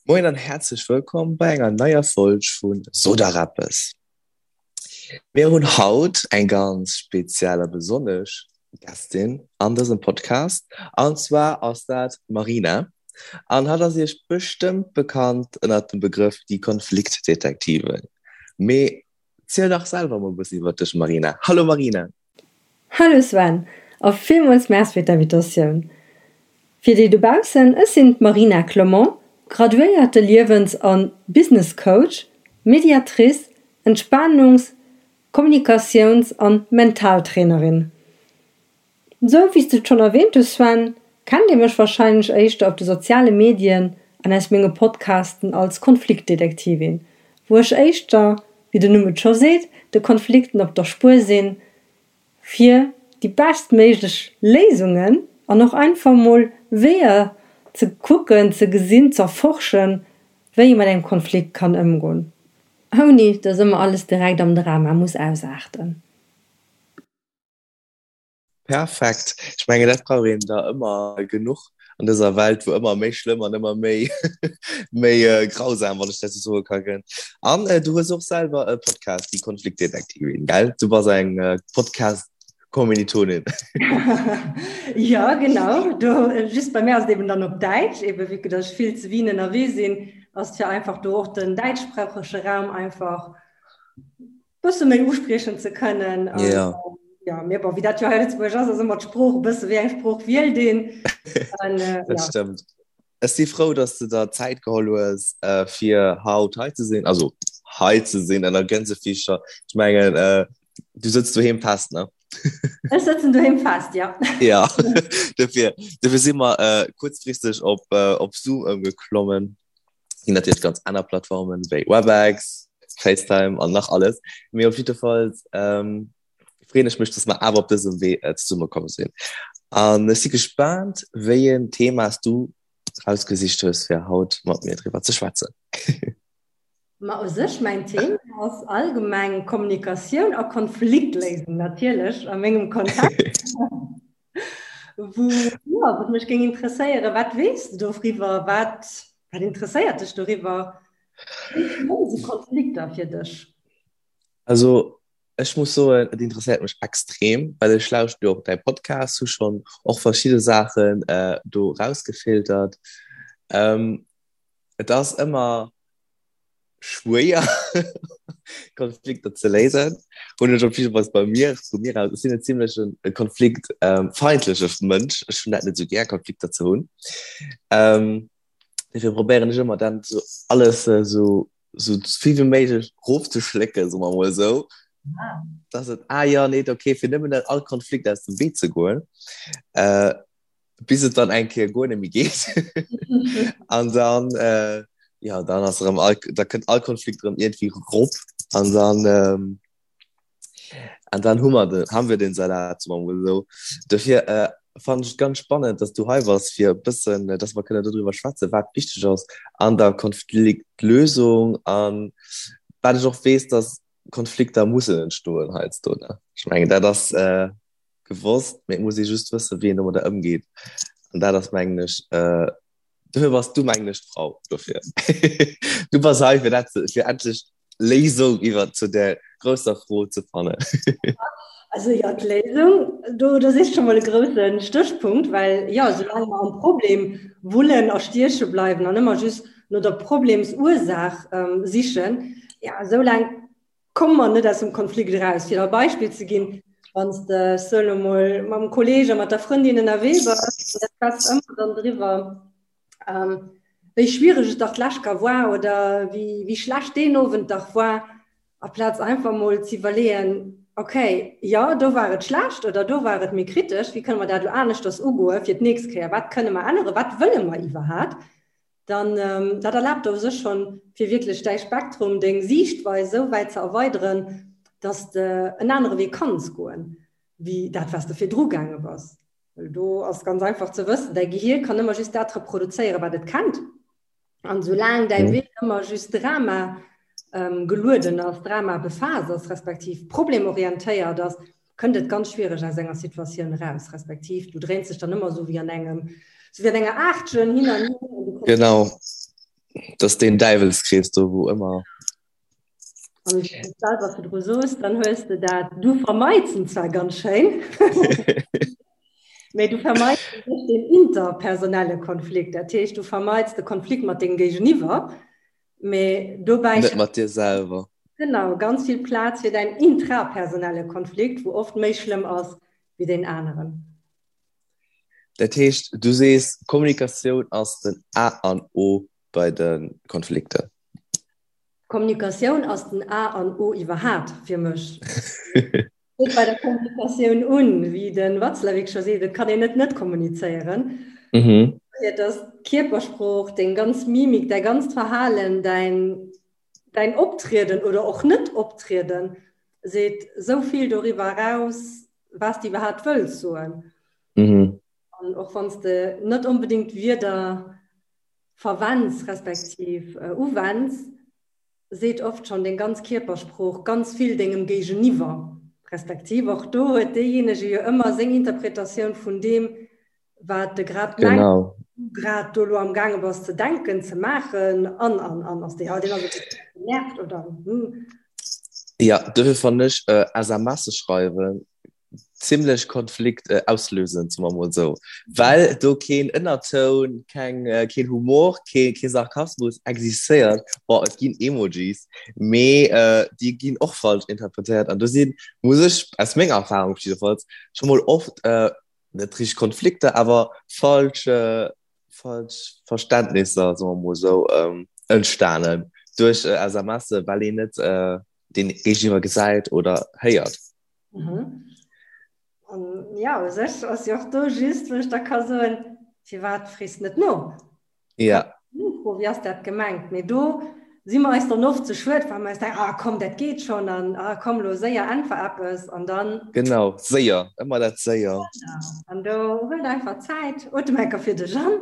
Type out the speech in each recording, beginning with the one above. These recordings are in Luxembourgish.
Moien an häerzlech wëllkomm bei enger neier Folg vu Sot der eppes. Mir hunn haut eng ganz speziell a besonnesch Gästin an dësem Podcast an zwar ass dat d'Marina an hatt ass iech bestëmmt bekannt ënnert dem Begrëff déi Konfliktdetektivin. Mee ziel dach selwer mol e bëssen iwwer dech Marina. Hallo Marina! Hallo Sven a villmools Merci fir d'Invitatioun. Fir déi dobaussen, ech sinn d'Marina Clement, graduéierte Liewens a Business Coach, Mediatrice, Entspanungs-, Kommunikatiouns an Mentaltrainerin. Sou wéi s de et schonn erwähnt hues Sven, kennt dir mech warscheinlech éischter op de soziale Medien an aus menge Podcasten als Konfliktdetektivin, wou ech éischter, wéi den Numm et scho seet, de Konflikten op der Spuer sinn, fir déi beschtméiglech Léisungen an och einfach mol Weeër ze kucken, ze gesinn, z'erforschen, wéi ee mat engem Konflikt kann ëmgoen, ouni dass ëmmer alles direkt am Drama muss ausaarten. Perfekt. Ech mengen, dat brauch een der ëmmer genuch an dëser Welt, wou ëmmer méi schlëmm an ëmmer méi méi äh, grausam, wann ech dat sou soe ka gëtt. An äh, du hues och selwer e Podcast, déi Konfliktdetektivin, gell? Du bass eng äh, Podcast-Kommilitonin. Ja, genau. Do, just bei mir ass et eben dann op Däitsch, eben vu que dass ech vill zu Wien ënnerwee sinn, ass et fir einfach do och den däitschsproochege Raum einfach bësse méi uspriechen ze kënnen. An, Ja. ja, mee bon, wéi dat jo hei Lëtzebuerg ass, ass ëmmer d'Sprooch e bësse wéi eng Sprooch wielt een. An, äh, Dat ja. stëmmt. Ech si frou, dass du der Zäit geholl hues, äh, fir haut hei ze sinn, also hei ze sinn ënner Gänsefiischer. Ech mengen, äh, du sëtz doheem fest, ne? Ech sëtzen doheem fest, ja. Ja, dofir, dofir si mer äh, kuerzfristeg op, äh, op Zoom ëmgeklommen. Ginn natierlech ganz aner Plattformen wéi Webex, FaceTime an nach alles. Mee op jiddefalls ähm, freeën ech mech, dass mer awer op dësem Wee äh, zesummekomm sinn. An ech si gespaant, wéi en Thema s du rausgesicht hues, fir haut mat mir driwwer ze schwätzen. Ma u sech mäin Thema ass allgemeng Kommunikatioun a Konfliktléisung natierlech a mengem Kontext. Wou, ja, wat mech géing interesséieren, wat weess de doriwwer? Wat, wat interesséiert dech doriwwer? Wéi schlëmm si Konflikter fir dech? Also ech muss soen, et interesséiert mech extrem, well ech lauschte jo och däi Podcast, hu schonn och verschidde Saachen äh, do rausgefiltert. Ähm, et ass ëmmer schwéier Konflikter ze léisen. Hunn ech op jidde Fall bei mir, vu mir aus, ech sinn en zimmlechen konfliktfeindleche Mënsch. Ech hunn dat net esou gär, Konflikter ze hunn. Ähm, dofir probéieren ech ëmmer dann so alles äh, so, so vill wéi méiglech rofzeschlécken, soe mer mol esou. Ah. Dass et, ah ja, nee, okay, fir nëmmen net all Konflikt aus dem Wee ze goen. Äh, bis et dann eng Kéier guer net méi geet. An dann, äh, ja, dann ass erëm all, da kënnt all Konflikt erëm iergendwéi rop an dann, ähm, an dann hu mer den, haben wir den Salat, soe mer mol esou. Dofir äh, fannen ech et ganz spannend, dass du hei bass, fir e bëssen, äh, dass mer kënnen dodriwwer schwätzen, wat wichteg ass an der Konfliktlösung an wat ech och weess, dass Konflikter mussen entstoen heiansdo, ne? Ech mengen, dat ass, äh, gewosst, mee et muss ee just wëssen, wéi een domadder ëmgeet. An dat ass, mengen ech, äh, dofir bass du, mengen ech, d'Frau dofir. Du bass hei, fir dat ze, fir endlech d'Léisung iwwer zu där grousser Fro ze fannen. Also jo, d'Léisung, do, do sichs scho mol e grousse Stéchpunkt, well jo, soulaang mer am Problem wullen a stieche bleiwen an ëmmer just no der Problemsursaach sichen, ja, soulaang Komme mer net aus dem Konflikt eraus. Fir der e Beispill ze ginn, Wann s de, ech soen elo mol, mam Kolleeg a mat der Frëndin ënnerwee bass, an der schwätzt ëmmer dann driwwer, wéi schwiereg et dach d'lescht ka war oder wéi, wéi schlecht deen Owend dach war, aplaz einfach mol ze iwwerleeën, okay, jo, do war et schlecht oder do war et méi kritesch, wéi kënne mer dat elo aneschters ugoe fir d'nächst Kéier, wat kënne mer änneren, wat wëlle mer iwwerhat? dann dat erlaabt der u sech schonn, fir wierklech däi Spektrum, deng Siichtweis esou wäit ze erweideren, dass de en anere Wee kanns goen, wéi dat, wat s de virdru gaange bass. Well do ass ganz einfach ze wëssen, däi Gehier kann ëmmer just dat reproduzéieren, wat et kennt. An soulaang däi Wee ëmmer just Drama gelueden ass, Drama befaasst ass, respektiv problemorientéiert ass, kënnt et ganz schwiereg aus enger Situatioun eraus, respektiv du dréins dech dann ëmmer esou wéi an engem, esou wéi an enger Aachtchen hin an hier. Genau. Dat ass deen Däiwelskrees do, wou ëmmer. Wann s du selwer virdru soos, dann hues de dat, du vermeits en zwar ganz schéin, mee du vermeits net den interpersonelle Konflikt. Dat heescht, du vermeits de Konflikt mat dengem Géigeniwwer, mee dobäi. Net mat dir selwer. Genau, ganz vill Plaz fir däin intrapersonelle Konflikt, wou oft méi schlëmm ass wéi deen aneren. Dat heescht, du sees, Kommunikatioun ass den A an O bei de Konflikter. Kommunikatioun ass den A an O iwwerhaapt fir mech. Fänkt bei der Kommunikatioun un, wéi de Watzlawick scho seet, et kann een net net kommunizéieren. Mhm. Et ass d'Kierpersprooch, deng ganz Mimik, däi ganzt Verhalen, däin, däin Optrieden oder och Net-Optrieden seet esou vill doriwwer eraus, wat s de iwwerhaapt wëlls soen. Mhm. An och wann s de net onbedéngt Wierder verwenns respektiv äh, uwenns, seet oft schon deng ganz Kierpersprooch ganz vill dengem Géigeniwwer. Respektiv och do huet deejéinege jo ëmmer seng Interpretatioun vun deem, wat de grad mengt, Genau. du grad do lo am gaange bass ze denken, ze maachen an an an ass déi halt, deen ass e bësse genervt oder hm. Ja, dofir fannen ech äh, SMSe schreiwen zimmlech Konflikt äh, auslösend, soe mer mol esou. Well do keen Ënnertoun, keng, äh, keen Humor, kee, kee Sarkasmus existéiert. Bon, et ginn Emojis, mee äh, déi ginn och falsch interpretéiert. An do sinn, muss ech aus menger Erfahrung jiddefalls, scho mol oft äh, net richteg Konflikter, awer falsch, äh, falsch Verständnisser, soe mer mol esou, ähm, entstanen duerch äh, SMSe, well een net äh, den Géigeniwwer gesäit oder héiert. Mhm. An ja, u sech ass jo och do just, wou ech da ka soen, firwat frees net no? Ja. Nofro, wéi ass dat gemengt? Mee do si mer eis dann oft ze schued, well mer eis denken, ah komm, dat geet schonn an ah komm lo séier, äntwer eppes an dann. Genau, séier, ëmmer dat séier. Genau, an do huel einfach Zäit, otem enker fir dech an.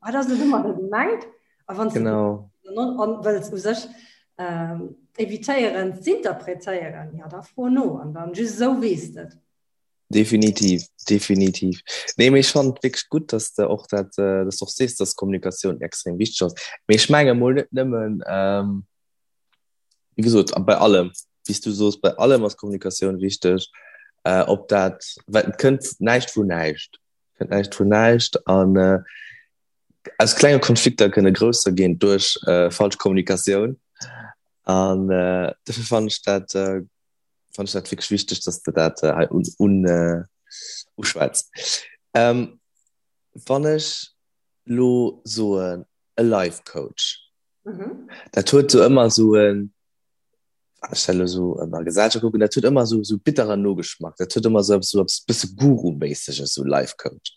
Wat ass et ëmmer da gemengt? A wann genau. an wëlls u sech ähm, evitéieren z'interpretéieren, ja da fro no an dann just esou weess de et. Definitiv, definitiv. Nee, mee ech fannen et wierklech gutt, dass de och dat, äh, dass du och sees, dass Kommunikatioun extrem wichteg ass. Mee ech menge mol net nëmmen, ähm, wéi gesot, bei allem, wéi s du soos, bei allem ass Kommunikatioun wichteg, äh, ob dat, well et kënnt näischt vun näischt, kënnt näischt vun näischt an äh, aus klenge Konflikter kënne grousser ginn duerch äh, falsch Kommunikatioun. An äh, dofir fand ech dat, äh, fand ech dat wierklech wichteg, dass de dat äh, hei un, un, äh, uschwätz. Ähm, wann ech lo soen, e Life Coach, mhm. dat huet so ëmmer so en ech dat elo sou an der Gesellschaft kucken, dat huet ëmmer sou sou bitteren Nogeschmack. Dat huet ëmmer sou eppes sou eppes bësse Guru-méisseges, sou Life Coach.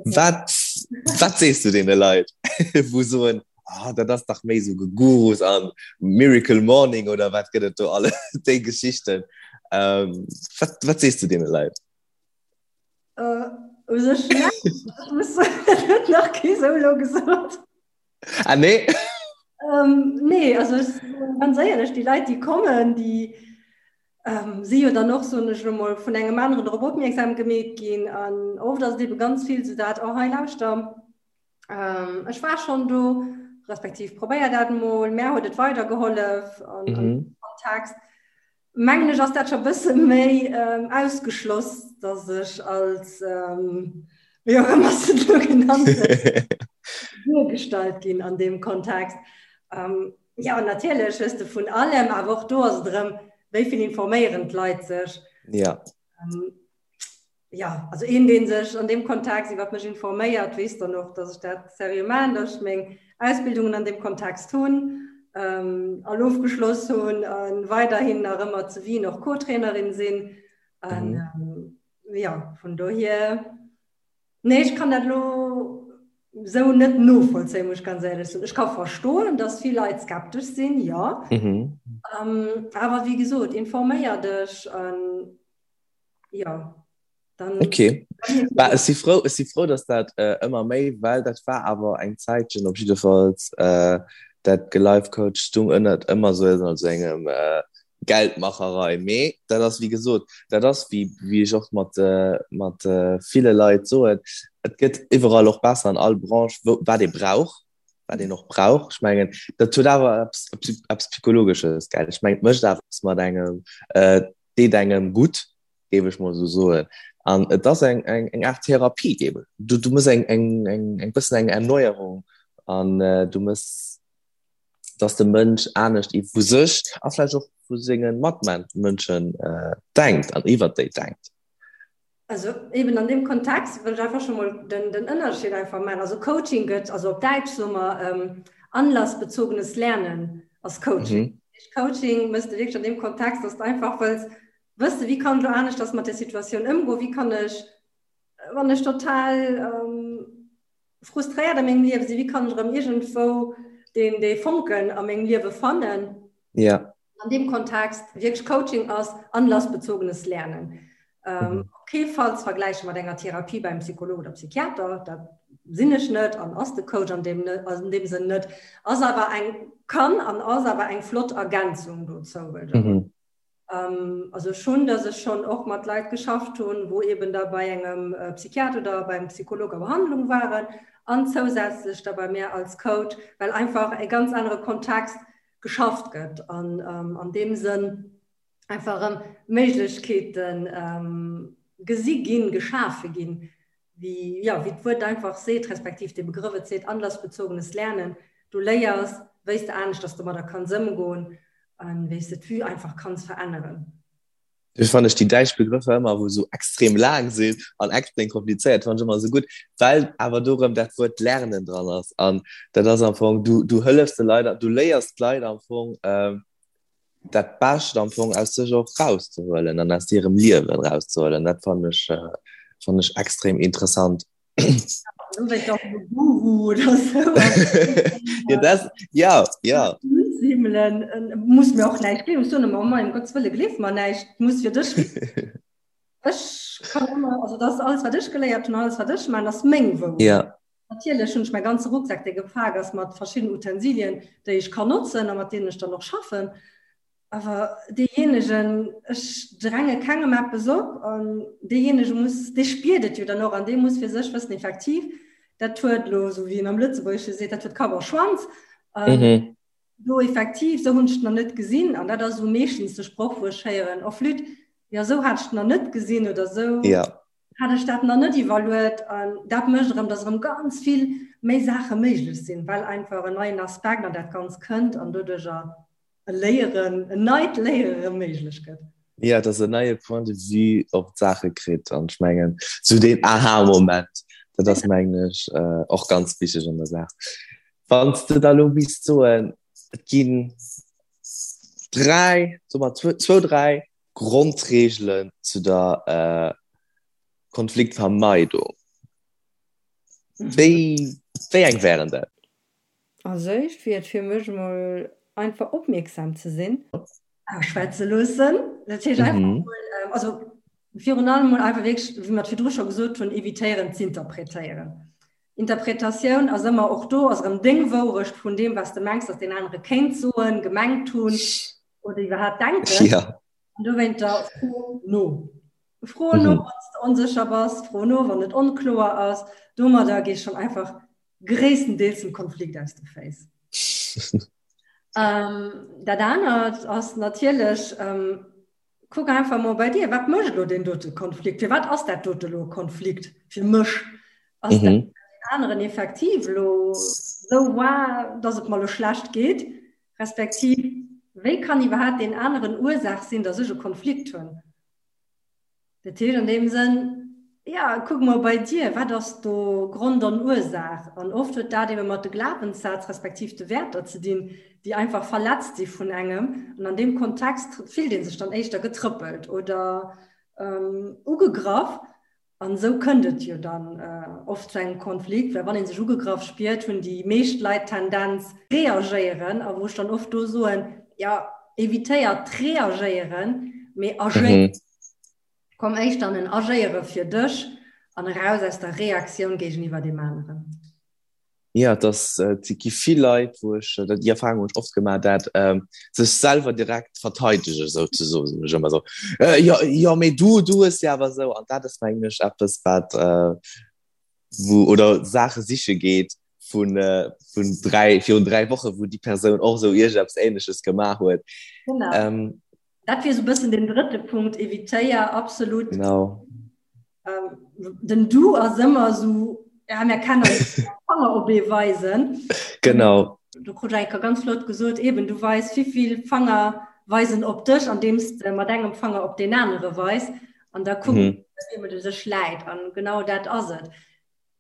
Wat wat sees du deene Leit, wou soen, ah dat ass dach méi sou Gegurus an Miracle Morning oder wat gëtt et do alles, déi Geschichten. Ähm, wat wat sees du deene Leit? Äh, u sech näischt. Ech muss soen, dat huet nach kee sou elo gesot. Ah nee? Ähm, nee, also ech, ganz éierlech, déi Leit, déi kommen, déi ähm, si jo dann och, soen ech elo mol, vun engem aneren drop opmierksam gemeet ginn. An oft ass et ebe ganz vill sou dat, oh hei lauschter, ähm, ech war schonn do, respektiv probéier dat mol, mär huet et weidergehollef an, mhm. an Kontext. Mengen ech ass dat scho bësse méi ähm, ausgeschloss, dass ech als ähm, wéi och ëmmer se do genannt duergestallt ginn an deem Kontext. Ähm, ja, an natierlech hues de vun allem, awer och do ass et erëm, wéi vill informéieren d'Leit sech. Ja. Ähm, ja, also een, deen sech an deem Kontext iwwer mech informéiert, weess dann och, dass ech dat seriö maachen, dass ech meng Ausbildungen an deem Kontext hunn, ähm, all ofgeschloss hunn a weiderhin nach ëmmer zu Wien och Co-Trainerin sinn. An, mhm. ähm, ja, vun dohier, nee, ech kann dat lo sou net novollzéien, muss ech ganz éierlech soen. Ech ka verstoen, dass vill Leit skeptesch sinn, ja. Mhm. Ähm, awer wéi gesot, informéier dech an ja dann okay bah, ech si frou ech si frou dass dat äh, ëmmer méi well dat war awer eng Zäitchen op jiddefalls äh, dat gelifecoach stung ënnert ëmmer sou ënner engem äh, Geldmacherei mee dat ass wéi gesot dat ass wéi wéi ech och mat äh, mat äh, ville Leit soen et gëtt iwwerall och besser an all Branche wou wat ee brauch. wat een och brauch. Ech mengen, dat huet awer eppes, eppes Psychologesches, gell? Ech mengen, et mécht awer eppes mat engem, et deet engem gutt, géif ech mol esou soen. An et ass eng, eng, eng Aart Therapie, géif ech. Du, du mëss eng, eng, eng, eng bëssen eng Erneuerung an du mëss, dass de Mënsch anescht iw vu sech a vläicht och vu senge Matmënschen denkt an iwwert déi denkt. Also eben an dem Kontext wëll ech einfach schon mol den, den Ënnerscheed einfach maachen. Also Coaching gëtt, also op Däitsch soe mer ähm, anlassbezogenes Lernen ass Coaching. Mhm. Coaching mëss de wierklech an dem Kontext, dass du einfach wëlls wësse wéi kann ech lo aneschters mat der Situatioun ëmgoen, wéi kann ech, wann ech total ähm, frustréiert a mengem Liewe sinn, wéi kann ech erëm iergendwou deen, dee Fonken a mengem Liewe fannen. Ja. An deem Kontext wierklech Coaching ass anlassbezogenes Lernen. Ähm, mhm. Op kee Fall ze vergläiche mat enger Therapie beim Psycholog oder Psychiater, dat sinn ech net an ass de Coach an deem, an deem Sënn net, ass awer eng kann an ass awer eng flott Ergänzung dozou. Mhm. Ähm, also schon, dass ech schon och mat Leit geschafft hunn, wou eben da bei engem äh, Psychiater oder beim Psycholog a Behandlung waren an zousätzlech da bei mir als Coach, well einfach e ganz anere Kontext geschafft gëtt an ähm, an deem Sënn einfach erëm Méiglechkeeten ähm, gesi ginn, geschafe ginn, wéi, ja, wéi d'Wuert einfach seet, respektiv de Begrëff et seet, anlassbezogenes Lernen. Du léiers, wéi s de aneschters domadder kanns ëmgoen an wéi s de d'Vue einfach kanns veränneren. Dofir fannen ech déi däitsch Begrëffer ëmmer, wou esou extrem laang sinn an extrem komplizéiert, fannen ech ëmmer esou gutt, well awer do erëm dat Wuert lernen dran ass. An dat ass am Fong, du, du hëllefs de Leit, du léiers d'Leit am Fong, dat Bescht am Fong aus sech och rauszehuelen an aus hirem Liewen rauszehuelen. Dat fannen ech, fannen ech extrem interessant. Du wéi doch e Guru oder sou. Ja, das, ja, ja. Himmelen, äh, muss mir och näischt gleewen. Ech soen ëmmer, oh mein Gottes Wëlle, gleef mer näischt, muss fir dech. Ech kann ëmmer, also das alles wat ech geléiert hunn, alles wat ech man, ass meng Wourecht. Ja. Natierlech hunn ech mäi ganze Rucksak, dee gepak ass mat verschiddenen Utensilien, déi ech kann notzen a mat deenen ech dann och schaffen. Awer deejéinegen, ech dränge kengem eppes op, an deejéinege muss, dee spiert et jo dann och an dee muss fir sech wëssen, effektiv, dat huet elo, esou wéi een am Lëtzebuergesche seet, dat huet Kapp a Schwanz. An do effektiv, esou hunn ech et nach net gesinn. An dat ass esou meeschtens de Sproch, wou ech héieren, Oh flütt, jo esou hat ech et nach net gesinn oder esou hat ech dat nach net iwwerluet. An dat mécht erëm, datt erëm ganz vill méi Saache méiglech sinn, well einfach en neien Aspekt an dat Ganzt kënnt an doduercher e Léieren, en neit Léiere rëm méiglech gëtt. Jo, dass en neie Point de vue op d'Saache kritt an ech mengen, sou deen Aha-Moment, dat ass mengen ech och ganz wichteg an der Saach. Wann s de da lo misst soen, et ginn dräi, soe mer zwou, dräi Grondreegelen zu der Konfliktvermeidung, wéi, wéi eng wären dat? Als éischt wier et fir mech emol einfach opmierksam ze sinn. Ausschwätze loossen. Dat heescht einfach mol, also virun allem mol einfach wierklech, wéi mer et virdru scho gesot hunn, evitéieren z'interpretéieren. Interpretatioun ass ëmmer, och do ass erëm deng Wourecht vun deem, wat s de mengs, datt deen anere kéint soen, gemengt hunn oder iwwerhaapt denken. An dowéinter fro no. Fro no, wann s de onsécher bass, fro no, wann et onkloer ass. Domadder gees schonn einfach gréisstendeels dem Konflikt aus de Féiss. Ähm, dat anert ass natierlech, ähm, kuck einfach mol bei dir, wat mécht elo deen dote Konflikt? Firwat ass dat dote elo e Konflikt fir mech? Ass dat mhm. aneren effektiv elo sou war, dass et mer elo schlecht geet? Respektiv, wéi kann iwwerhaapt deen aneren Ursaach sinn, dass ech e Konflikt hunn? Dat heescht an deem Sënn, ja, kuck mol bei dir, wat ass do Grond an Ursaach? An oft huet dat ebe mat de Glawenssätz respektiv de Wäerter ze dinn, déi einfach verletzt si vun engem. An an deem Kontext fillt ee sech dann éischter getrëppelt oder ugegraff. An esou kënnt et jo dann oft zu engem Konflikt, well wann ee sech ugegraff spiert, hunn déi meescht Leit d'Tendenz reagéieren. A wou ech dann oft do soen, jo, evitéiert d'Reagéieren, mee agéiert. Komm éischter an en Agéiere fir dech an eraus aus der Reaktioun géigeniwwer deem aneren. Jo, et ass, et gi vill Leit, wou ech, dat déi Erfahrung hunn ech oft gemaach, dat sech selwer direkt verteidegen souzesoen, soen ech ëmmer esou, jo, jo, mee du, du hues jo awer esou. An dat ass mengen ech eppes, wat, wou, oder Saache siche geet. vun, äh, vun 3, virun 3 Woche, wou déi Persoun och esou iergendeppes Ähnleches gemaach huet. Genau. Ähm, dat wier esou e bëssen den drëtte Punkt, evitéier absolut. Genau. Ähm, den Du ass ëmmer esou, ja, mir kennen Fanger op ee weisen. Genau. Du krut enker ganz flott gesot, eben du weis wéivill Fanger weisen op dech, andeems de mat engem Fanger op deen anere weis an da kucks, mhm. wéi du sech läit an genau dat ass et.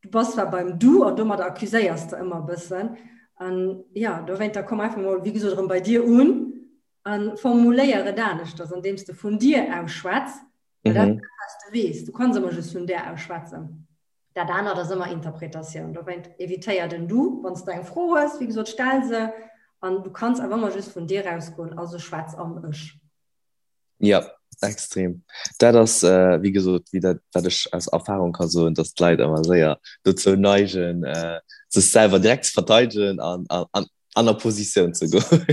Du bass zwar beim Du an domadder accuséiers de ëmmer e bëssen an ja, dowéinter komm einfach mol wéi gesot erëm bei dir un an formuléier et aneschters, andeems de vun dir aus schwätz, well dat mhm. was du weess. Du kanns ëmmer just vun där aus schwätzen. Dat anert ass ëmmer Interpretatioun. Dowéint evitéier den Du, wann s du eng Fro hues, wéi gesot, stell se an du kanns awer ëmmer just vun dir ausgoen, also schwätz am Ech. Ja, extrem. Dat ass, äh, wéi gesot, wéi dat, wat ech aus Erfahrung ka soen, dass d'Leit ëmmer séier dozou neigen, äh, sech selwer direkt ze verteidegen an, an, an an a Positioun ze goen.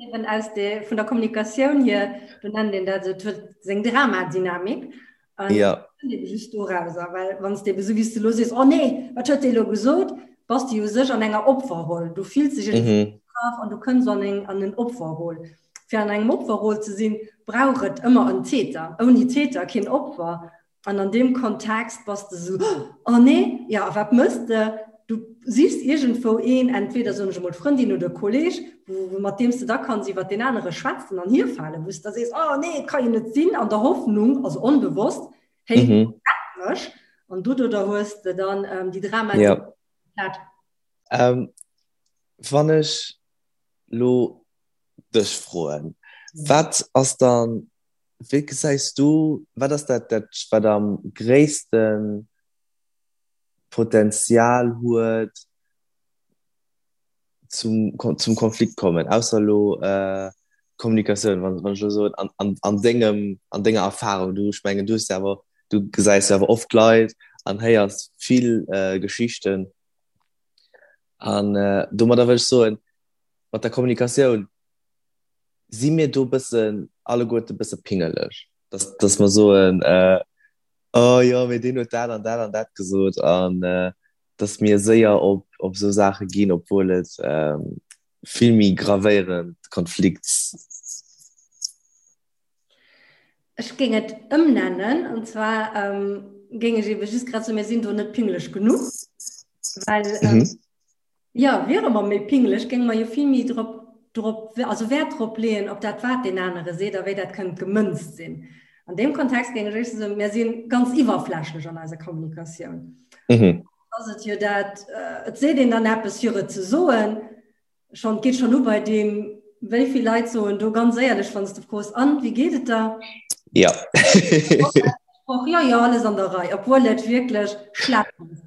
Eben aus de, vun der Kommunikatioun hier, do nennt een dat esou, et huet seng Dramadynamik. An ja. just dorauser, well wann s de eben esou wéi s de elo sees, oh nee, wat huet dee elo gesot, bass de jo u sech an enger Opferroll. Du fills dech mhm. an du kënns an eng an en Opferroll. Fir an engem Opferroll ze sinn, brauch et ëmmer en Täter. Ouni Täter keen Opfer. An an deem Kontext bass de sou, oh nee, ja a wat mëss de? Du sichs iergendwou een, entweder soen ech emol d'Frëndin oder e Kolleg, wou mat deem s de da kanns iwwer deen anere schwätzen an hierfalen, wou s de da sees, oh nee, et ka jo net sinn, an der Hoffnung, also onbewosst, hey, mhm. rett mech. An doduerder hues de dann ähm, déi Drama. Ja. Ähm, wann ech lo dech froen, wat ass dann Wéi gesäis du, wat ass dat, dat wat am gréisste Potenzial huet zum, zum Konflikt kommen, ausser elo äh, Kommunikatioun, wann, wann ech elo soen, an, an, an dengem, an denger Erfahrung, du, ech mengen, du hues jo awer, du gesäis jo awer oft Leit an héiers vill äh, Geschichten an äh, domadder wëll ech soen, mat der Kommunikatioun, Si mir do bëssen alleguerte bësse pingeleg, dass, dass mer soen, äh, oh jo, mee deen huet dat an dat an dat gesot an äh, dass mir séier op, op esou Saache ginn, obwuel et ähm, vill méi gravéierend Konflikts. Ech géing et ëmnennen, an zwar ähm, géing ech ebe just grad soen, mir sinn do net pingeleg genuch, well ähm, mhm. Jo, wiere mer méi pingeleg, géinge mer jo vill méi drop, drop, also Wäert drop leeën, op dat wat deen anere seet a wéi dat kënnt gemënzt sinn. An deem Kontext géing ech éischter soen, mir si ganz iwwerflächlech an eiser Kommunikatioun. Mhm. Ass et jo dat, et seet een dann eppes fir et ze soen, schonn, et geet schonn u bei deem, wéi vill Leit soen do ganz éierlech, wann s de froos, An, wéi geet et der? Ja. Och, jo, jo, alles an der Rei, obwuel et wierklech schlecht ass.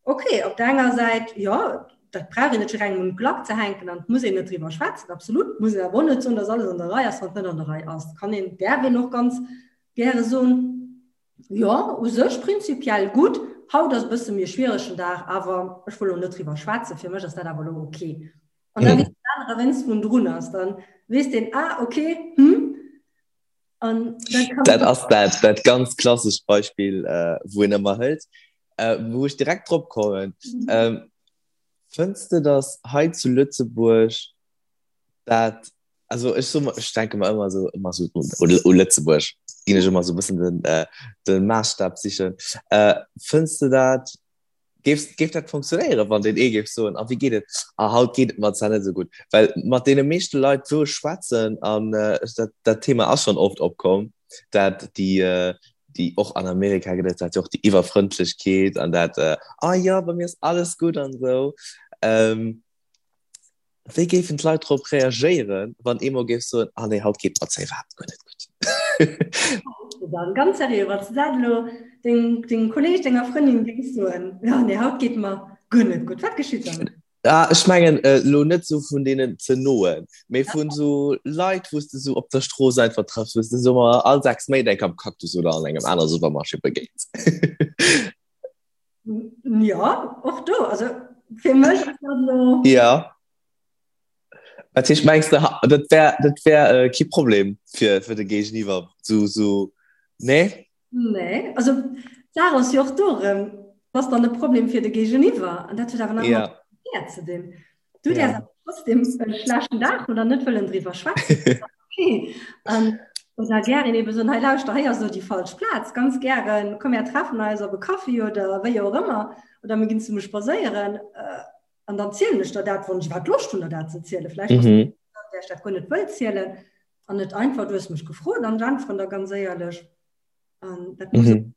Okay, op der enger Säit, jo, dat brauch een net fir engem un d'Glack ze hänken an et muss een net driwwer schwätzen, absolut. Muss een awer och net soen, dass alles an der Rei ass, wann et net an der Rei ass. Kann een, däerf een och ganz gäre soen, jo, u sech prinzipiell gutt, haut ass e bësse méi e schwieregen Dag, awer ech wëll elo net driwwer schwätzen, fir mech ass dat awer elo okay. An da weess den anere, wéinst wou en drun ass, dann weess deen, ah, okay, hm, Dat ass dat, dat ganz klassescht Beispill, äh, wou een ëmmer hëlt, äh, wou ech direkt drop kommen. Mhm. Ähm, fënns de, dass hei zu Lëtzebuerg dat, also ech so, ech denke mer ëmmer so, ëmmer so u, u Lëtzebuerg, ginn ech ëmmer so bëssen den, äh, den Maßstab sichen. Äh, fënns de dat, Géif, géif dat funktionéieren, wann deen ee géif soen, a wéi geet et? A haut geet et mer zwar net esou gutt. Well mat deene meeschte Leit, wou ech schwätzen, an äh, dat, dat Thema ass schonn oft opkomm, dat déi, äh, déi och an Amerika gëtt et dat jo och déi Iwwerfrëndlechkeet an dat, äh, ah ja, bei mir ass alles gutt an esou. Ähm, Wéi géifen d'Leit drop reagéieren, wann ee mol géif soen, ah nee, haut geet mer zwar iwwerhaapt guer net gutt? Dann, ganz seriö, wann s de dat elo dengem, dengem Kolleeg, denger Frëndin géings soen, ja nee, haut geet mer guer net gutt, wat geschitt dann? Ah, ech mengen elo net esou vun deenen ze noen, mee vun esou Leit, wou s de esou op der Strooss einfach trëffs, wou s de esou mol all 6 Méint eng Kéier am Cactus oder an engem anere Supermarché begéins. Ja, och do. Also fir mech ass dat elo. Ja. Dat heescht, mengs de, dat wär, dat wär äh, kee Problem fir, fir de Géigeniwwer? So, so, nee? Nee, also d'Saach ass jo och do erëm. ass dann e Problem fir de Géigeniwwer an dat huet awer nach ja. mat ze dinn. Du ja. däers trotzdem e schlechten Dag oder net wëllen driwwer schwätzen. Okay. Um, oder gären eben so, hei lauschter, hei ass so déi falsch Plaz, ganz gären, komm mir treffen eis op e Kaffi oder wéi och ëmmer oder mir ginn zesumme spadséieren. Äh, an dann zielen ech der dat, wann ech iwwerhaapt Loscht hunn, der dat ze zielen. Vläicht mhm. der ech dat guer net wëll zielen an net einfach, du hues mech gefrot an ech äntweren der ganz éierlech. An dat muss mhm.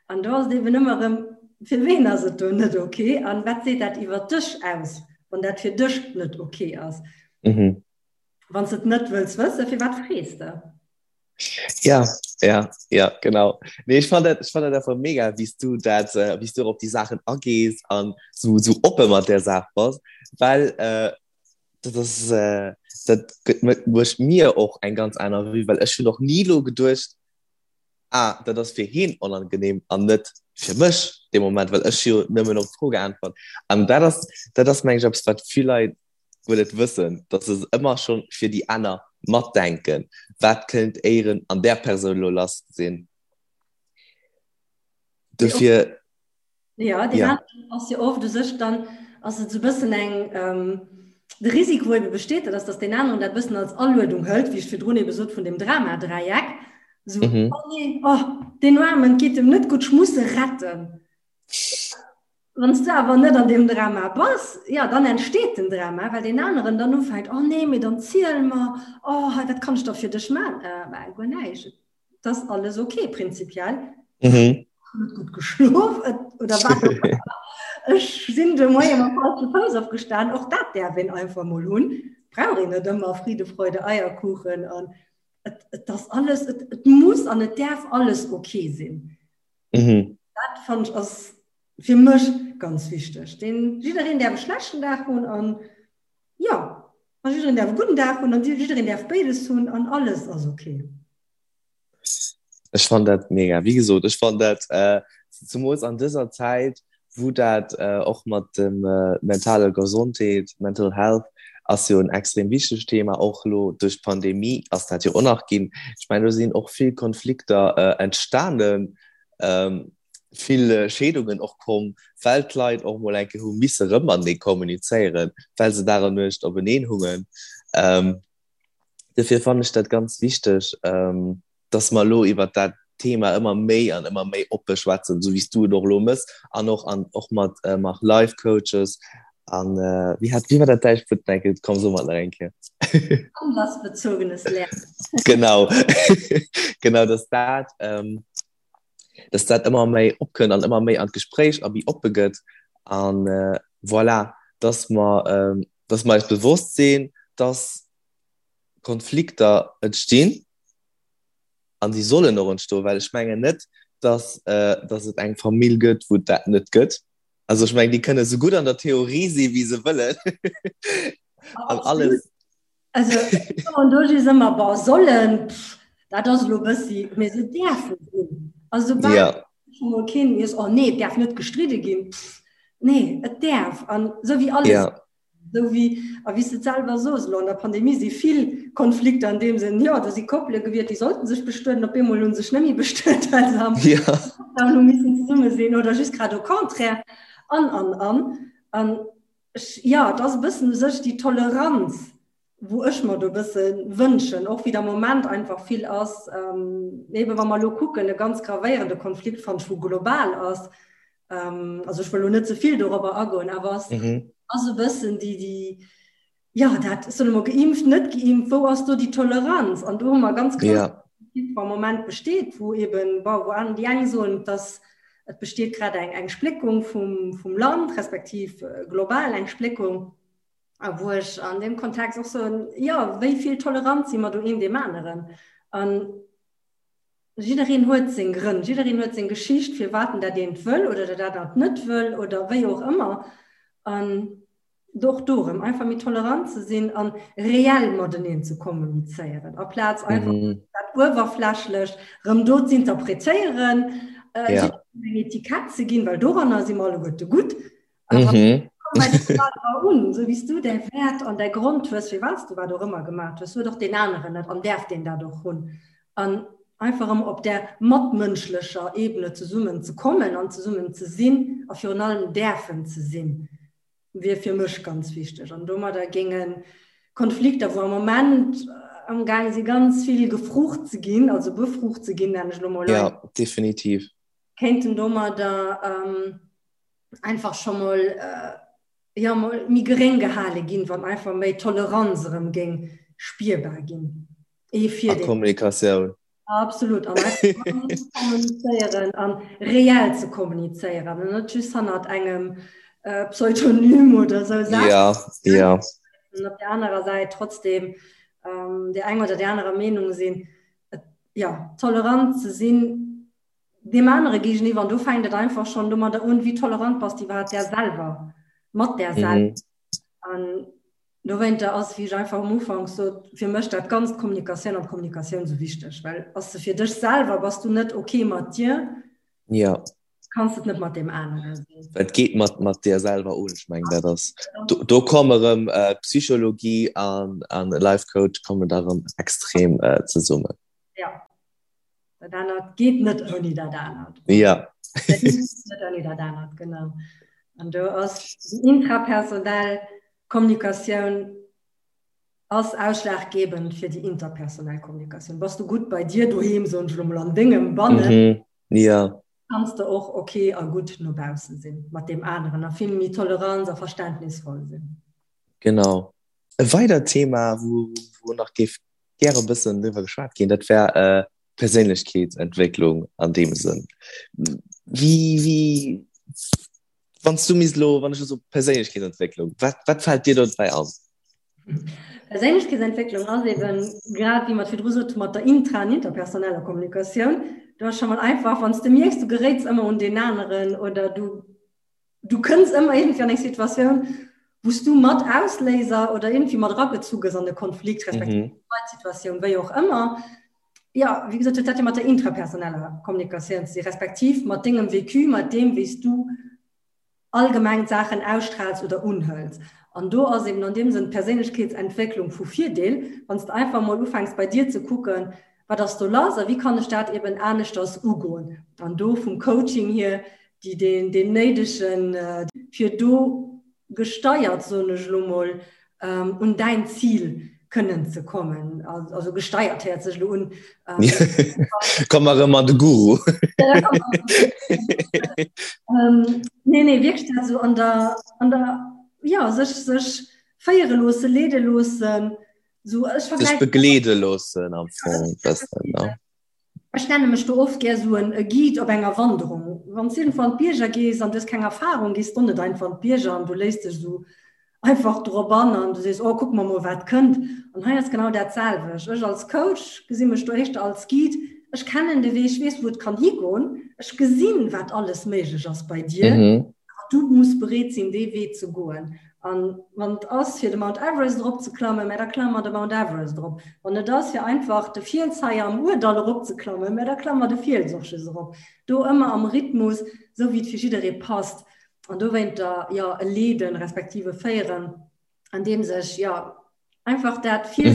An do ass et eben ëmmer erëm, fir ween ass et do net okay an wat seet dat iwwer dech aus, wann dat fir dech net okay ass. Mhm. Wann s et net wëlls wëssen, firwat frees de? Ja, ja, ja, genau. Nee, ech fand dat, ech fand dat einfach mega, wéi s du dat, äh, wéi s du op déi Saachen agees an sou, sou oppe mat där Saach bass, well äh, dat ass, äh, dat gëtt mécht mir och eng ganz aner Vue, well ech hunn och ni lo geduecht, ah, dat ass fir heen onangenehm an net fir mech dee Moment, well ech jo nëmmen op d'Fro geäntwert. An dat ass, dat ass meng ech eppes, wat vill Leit guer net wëssen, dass se ëmmer schonn fir déi aner matdenken, wat kënnt éieren an där Persoun elo lass sinn. Dofir. Ja, deen ja. aneren ass jo oft u sech dann ass et sou bëssen eng ähm, de Risiko ebe besteet, dat ass, dass deen aneren dat bëssen als Aluedung hëlt, wéi ech virdrun ebe sot vun dem Drama-Dräieck. So, mhm. oh nee, oh, deen Aarmen geet em net gutt, ech muss e retten. Wann s du awer net an deem Drama bass, ja, dann entsteet den Drama, well deen aneren dann ufänkt, oh nee, mee dann ziel mer, oh, hei, wat kann ech da fir dech man? Äh, bah, guer näischt. Das alles okay prinzipiell. Mhm. Net gut geschlof oder wat auch immer. Ech sinn de Moie mam falsche Fouss opgestan, och dat däerf een einfach mol hunn. Brauch een net ëmmer Friede, Freude, Eierkuchen an et, et ass alles, et, et muss an et däerf alles okay sinn. Mhm. Dat fand ech ass fir mech ganz wichteg. Den jiddereen däerf e schlechten Dag hunn an ja, a jiddereen däerf e gudden Dag hunn an jiddereen däerf béides hunn an alles ass okay. Ech fannen dat mega. Wéi gesot, ech fannen dat äh, zemools an dëser Zäit, wou dat äh, och mat dem äh, mentale Gesondheet, Mental Health, ass jo en extrem wichtegt Thema, och elo duerch d'Pandemie ass dat jo och nach ginn. Ech mengen, do sinn och vill Konflikter äh, entstanen, ähm, vill Scheedungen och komm, well d'Leit och mol eng Kéier hu misse rëm matenee kommunizéieren, well se Dag an Nuecht openeen hungen. Ähm, Dofir fannen ech dat ganz wichteg, ähm, dass mer elo iwwert dat Thema ëmmer méi an ëmmer méi oppe schwätzen, esou wéi s du et och elo mëss an och an och mat äh, mat Life Coaches an äh, wéi hat wéi war dat däischt Wuert nach eng Kéier? Komm so mat nach eng Kéier. Anlassbezogenes Lernen. Genau genau, dass dat ähm, dass dat ëmmer méi opkënnt an ëmmer méi an d'Gespréich a méi oppe gëtt an äh, voilà, dass mer ähm, dass mer eis bewosst sinn, dass Konflikter entstinn an déi sollen och entstoen, well ech mengen net, dass, äh, dass et eng Famill gëtt, wou et dat net gëtt. Also ech mengen, déi kënne sou gutt an der Theorie si wéi se wëllen an alles. Also an do si ëmmer bon sollen, pff, dat ass elo bëssi, mee se däerfe sinn. Also soubal Ja. mol keen iess, oh nee, et däerf net gestridde ginn, pff, nee, et däerf an esou wéi alles Ja. Esou wéi, a wéi s de et selwer sos, elo an der Pandemie si vill Konflikter an deem Sënn, jo, do si Koppele gewiert, déi sollten sech bestueden, op eemol hu sech net méi bestuet, well se am Ja. Lockdown hu missen zesumme sinn oder just grad au contraire an, an, an. An ech, jo, et ass e bëssen u sech déi Toleranz, wou ech mer do e bësse wënschen, och wéi et am Moment einfach vill ass, eebe wa mer elo kucken, e ganz gravéierende Konflikt, fannen ech, wou global ass, ähm, also ech wëll lo net ze vill dorobber agoen, awer ass, mhm. ass e bëssen déi, déi, ja, dat soll immer geimpft, net geimpft, wou ass do déi Toleranz? An do hu mer ganz ja. am Moment besteet, wou eben, bon, wou an déi eng soen, dass et besteet grad eng, eng Spléckung vum, vum Land, respektiv äh, global eng Spléckung. A wou ech an dem Kontext och soen, ja, wéi vill Toleranz si mer do een deem aneren? An Jiddereen huet seng Grënn, jiddereen huet seng Geschicht, firwat en dat eent wëll oder dat anert net wëll oder wéi och ëmmer. An och do erëm einfach méi tolerant ze sinn an reell mateneen ze kommunizéieren, aplaz einfach mhm. dat uewerflächlech rëm do ze interpretéieren, äh, ja. eng Etikett ze ginn, well doranner si mer alleguerte gutt. Awer mhm. un, so wéi du däi Wäert an däi Grond hues, fir wat du wat och ëmmer gemaach hues, huet och deen aneren net an däerf deen dat och hunn. An. Einfach erëm op där matmënschlecher Ebene zesummen ze kommen an zesummen ze sinn a virun allem däerfen ze sinn, wier fir mech ganz wichteg. An domadder géinge Konflikter, wou am Moment amgaang si ganz vill gefrucht ze ginn, also befrucht ze ginn, nennen ech elo mol. Ja, definitiv. Kéinten domadder einfach scho mol, jo, mol méi geréng gehale ginn, wann einfach méi Toleranz erëm géing spierbar ginn. Ee fir A Kommunikatioun. Absolut an kommunizéieren an reell ze kommunizéieren an net just hannert engem äh, Pseudonym oder sou Saachen. Ja, ja. An op der anerer Säit trotzdem ähm, der eng oder der anerer Meenung sinn. Et, ja, tolerant ze sinn deem anere géigeniwwer an do fänkt et einfach schon domadder un, wéi tolerant bass du iwwerhaapt där selwer, mat där selwer. Mhm. An Dowéinter ass, wéi ech einfach um Ufank sot, fir mech dat Ganzt Kommunikatioun an Kommunikatioun esou wichteg, well ass se fir dech selwer, bass du net ok mat dir, ja. kanns et net mat deem anere sinn. Et geet mat, mat dir selwer un, ech mengen dat ass, do, do komme erëm äh, Psychologie an, an Life Coach kommen da erëm extrem äh, zesummen. Ja. Dat anert geet net ouni dat anert. Ja. Dat geet net ouni dat anert, genau. An do ass déi intrapersonell Kommunikatioun ass ausschlaggebend fir déi interpersonell Kommunikatioun. Bass du gutt bei dir doheem, soen ech elo mol, an dengem Bannen, mhm. ja. kanns de och okay a gutt no bausse sinn mat deem aneren a vill méi tolerant a verständnisvoll sinn. Genau. E weidert Thema, wou, wou nach géif gäre bëssen driwwer geschwat ginn, dat wär äh, Perséinlechkeetsentwécklung an deem Sënn. Wie, wie, wann du misst lo, wann ech so Perséinlechkeetsentwécklung, wat, wat fällt dir dobäi an? Perséinlechkeetsentwécklung ass eben grad wéi mer virdru sot mat der intra an interpersoneller Kommunikatioun. Du ass scho mal einfach, wann s de mierks, du geréits ëmmer un deen aneren oder du du kënns ëmmer irgendwie an eng Situatioun, wou s du mat Ausléiser oder irgendwie mat eragezu gëss an e Konflikt, respektiv mhm. Situatioun, wéi och ëmmer. Ja, wéi gesot, huet dat jo mat der intrapersoneller Kommunikatioun ze sinn, respektiv mat dengem Vécu, mat deem, wéi s du allgemeng d'Saachen ausstrahlst oder unhëls. An do ass eben an deem Sënn d'Perséinlechkeetsentwécklung vu Virdeel, wann s de einfach mol ufänks bei dir ze kucken, wat ass do lass a wéi kann ech dat eben aneschters ugoen. An do vum Coaching hier déi deen, deen néidegen, fir do gesteiert, soen ech elo mol, un däin Zil kënnen ze kommen. Also gesteiert héiert sech elo un. Komm mer erëm an de Guru. Nee, nee, wierklech dat esou an der, an der, jo, sech, sech féiere loosse, leede loossen. Sou, ech vergläichen. Sech begleede loossen am Fong e bëssen, ne? Ech nenne mech do oft gär sou en Guide op enger Wanderung. Wann s de iergendwou an d'Bierger gees an du hues keng Erfahrung, gees d'o net einfach an d'Bierger an du léiss dech sou einfach drop an an du sees, oh kucke mer mol wat kënnt. An hei ass genau dat selwecht. Ech als Coach gesi mech do éischter als Guide. Ech kennen de Wee, ech weess wou et kann higoen, ech gesinn wat alles méiglech ass bei dir, awer du muss bereet sinn dee Wee ze goen. An wann et ass fir de Mount Everest erop ze klammen, mä da klamme mer de Mount Everest erop. Wann et ass fir einfach de Fiels hei am Ourdall erop ze klammen, mä da klamme mer de Fiels och just erop. Do ëmmer am Rhythmus, esou wéi et fir jidderee passt. An dowéinter, jo, e leeden, respektiv e féieren, andeems ech, jo, einfach dat fir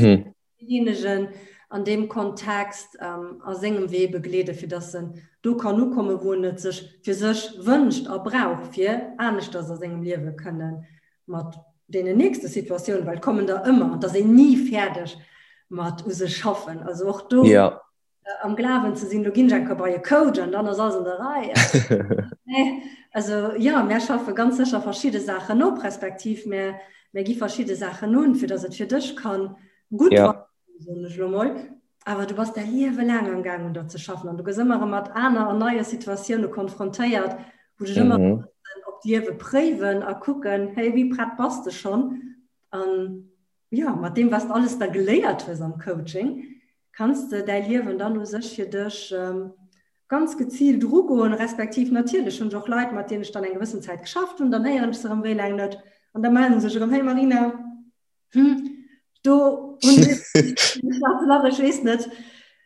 Deejéinegen an deem Kontext a sengem Wee begleeden, fir dass en do kann ukommen, wou en et sech fir sech wënscht a brauch, fir aneschters a sengem Liewe kënne mat deenen nächste Situatiounen, well et kommen der ëmmer, an et ass een ni fäerdeg mat u sech schaffen. Also och do am Glawen ze sinn, lo ginn ech eng Kéier bei e Coach an dann ass alles an der Rei. Nee, also jo, mär schaffe ganz sécher verschidde Saachen op, respektiv mär, mär gi verschidde Saachen un, fir datt et fir dech kann gutt ja. soen ech lo mol. Awer du bass däi Liewe laang am Gaang un der ze schaffen an du gëss ëmmer erëm mat aner an neie Situatioune konfrontéiert, wou dech ëmmer mhm. op d'Liewe préiwen a kucken, hey, wéi prett bass de schonn? An ja, mat deem, was de alles da geléiert hues am Coaching, kanns de däi Liewen dann u sech fir dech ähm, ganz geziilt ugoen, respektiv natierlech hunn ech och Leit, mat deenen ech dann eng gewëssen Zäit geschafft hunn, dann héieren ech se erëm wéi laang net an da mellen se sech erëm, hey Marina, hm, do hunn ech ech weess net,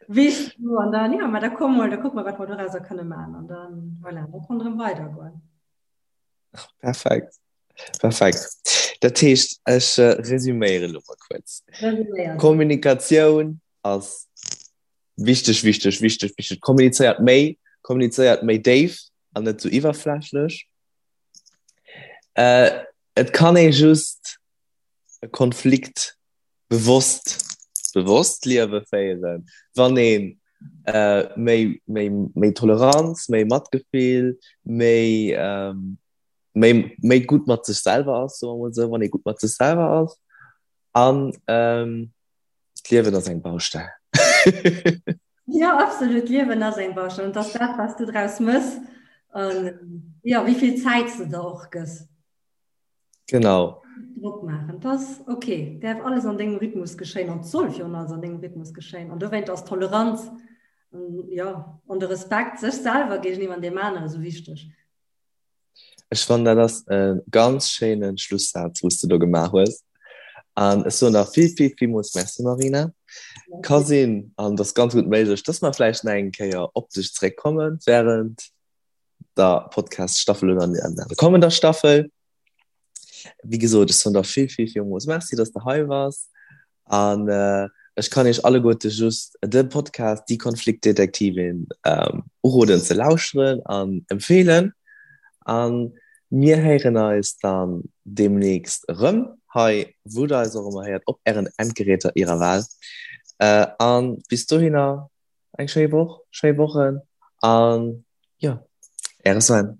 weess du an dann, ja, ma da komm mol, da kucke mer, wat mer dorauser kënne maachen an dann, voilà, da kann erëm weidergoen. Perfekt. Perfekt. Dat heescht, ech äh, resüméiere lo mal kuerz. Kommunikatioun ass. Wichteg, wichteg, wichteg, wichteg. Kommunizéiert méi, kommunizéiert méi déif an net sou iwwerflächlech. Äh, et kann ee just e Konflikt bewosst, bewosst Liewe féieren, wann een äh, méi, méi, méi Toleranz, méi Matgefill, méi, ähm, méi, méi gutt mat sech selwer ass, soe mer mol esou, wann ee gutt mat sech selwer ass. An ähm, d'Liewen ass eng Baustell. Ja, absolut, d'Liewen ass eng Baustell. Und dass dat, was du draus mëss, an ja, wéi vill Zäit du der och gëss. Genau. Drock maachen, dat ass okay. Däerf alles an dengem Rhythmus geschéien an soll virun alles an dengem Rhythmus geschéien. An dowéint ass Toleranz, ja, an de Respekt sech selwer géigeniwwer an deem anere sou wichteg. Ech fannen dat ass e ganz schéinen Schlusssaz wous de do gemaach hues an ech soen der vill vill villmools Merci Marina. Ka sinn an et ass ganz gutt méiglech dass mer vläicht nach eng Kéier op dech zeréckkommen während der Podcast Staffel oder an der kommender Staffel. Wéi gesot, ech soen der vill, vill, villmools Merci, dass de hei waars. An äh, ech kann iech alleguerte just de Podcast Die Konfliktdetektivin ähm, uroden ze lauschteren an empfeelen. An mir héieren eis dann demnächst erëm hei, wou der eis och ëmmer héiert, op ären Endgeräter ihrer Wahl. Äh, an bis dohinner eng schéi Woch, schéi Wochen an jo, äre Sven.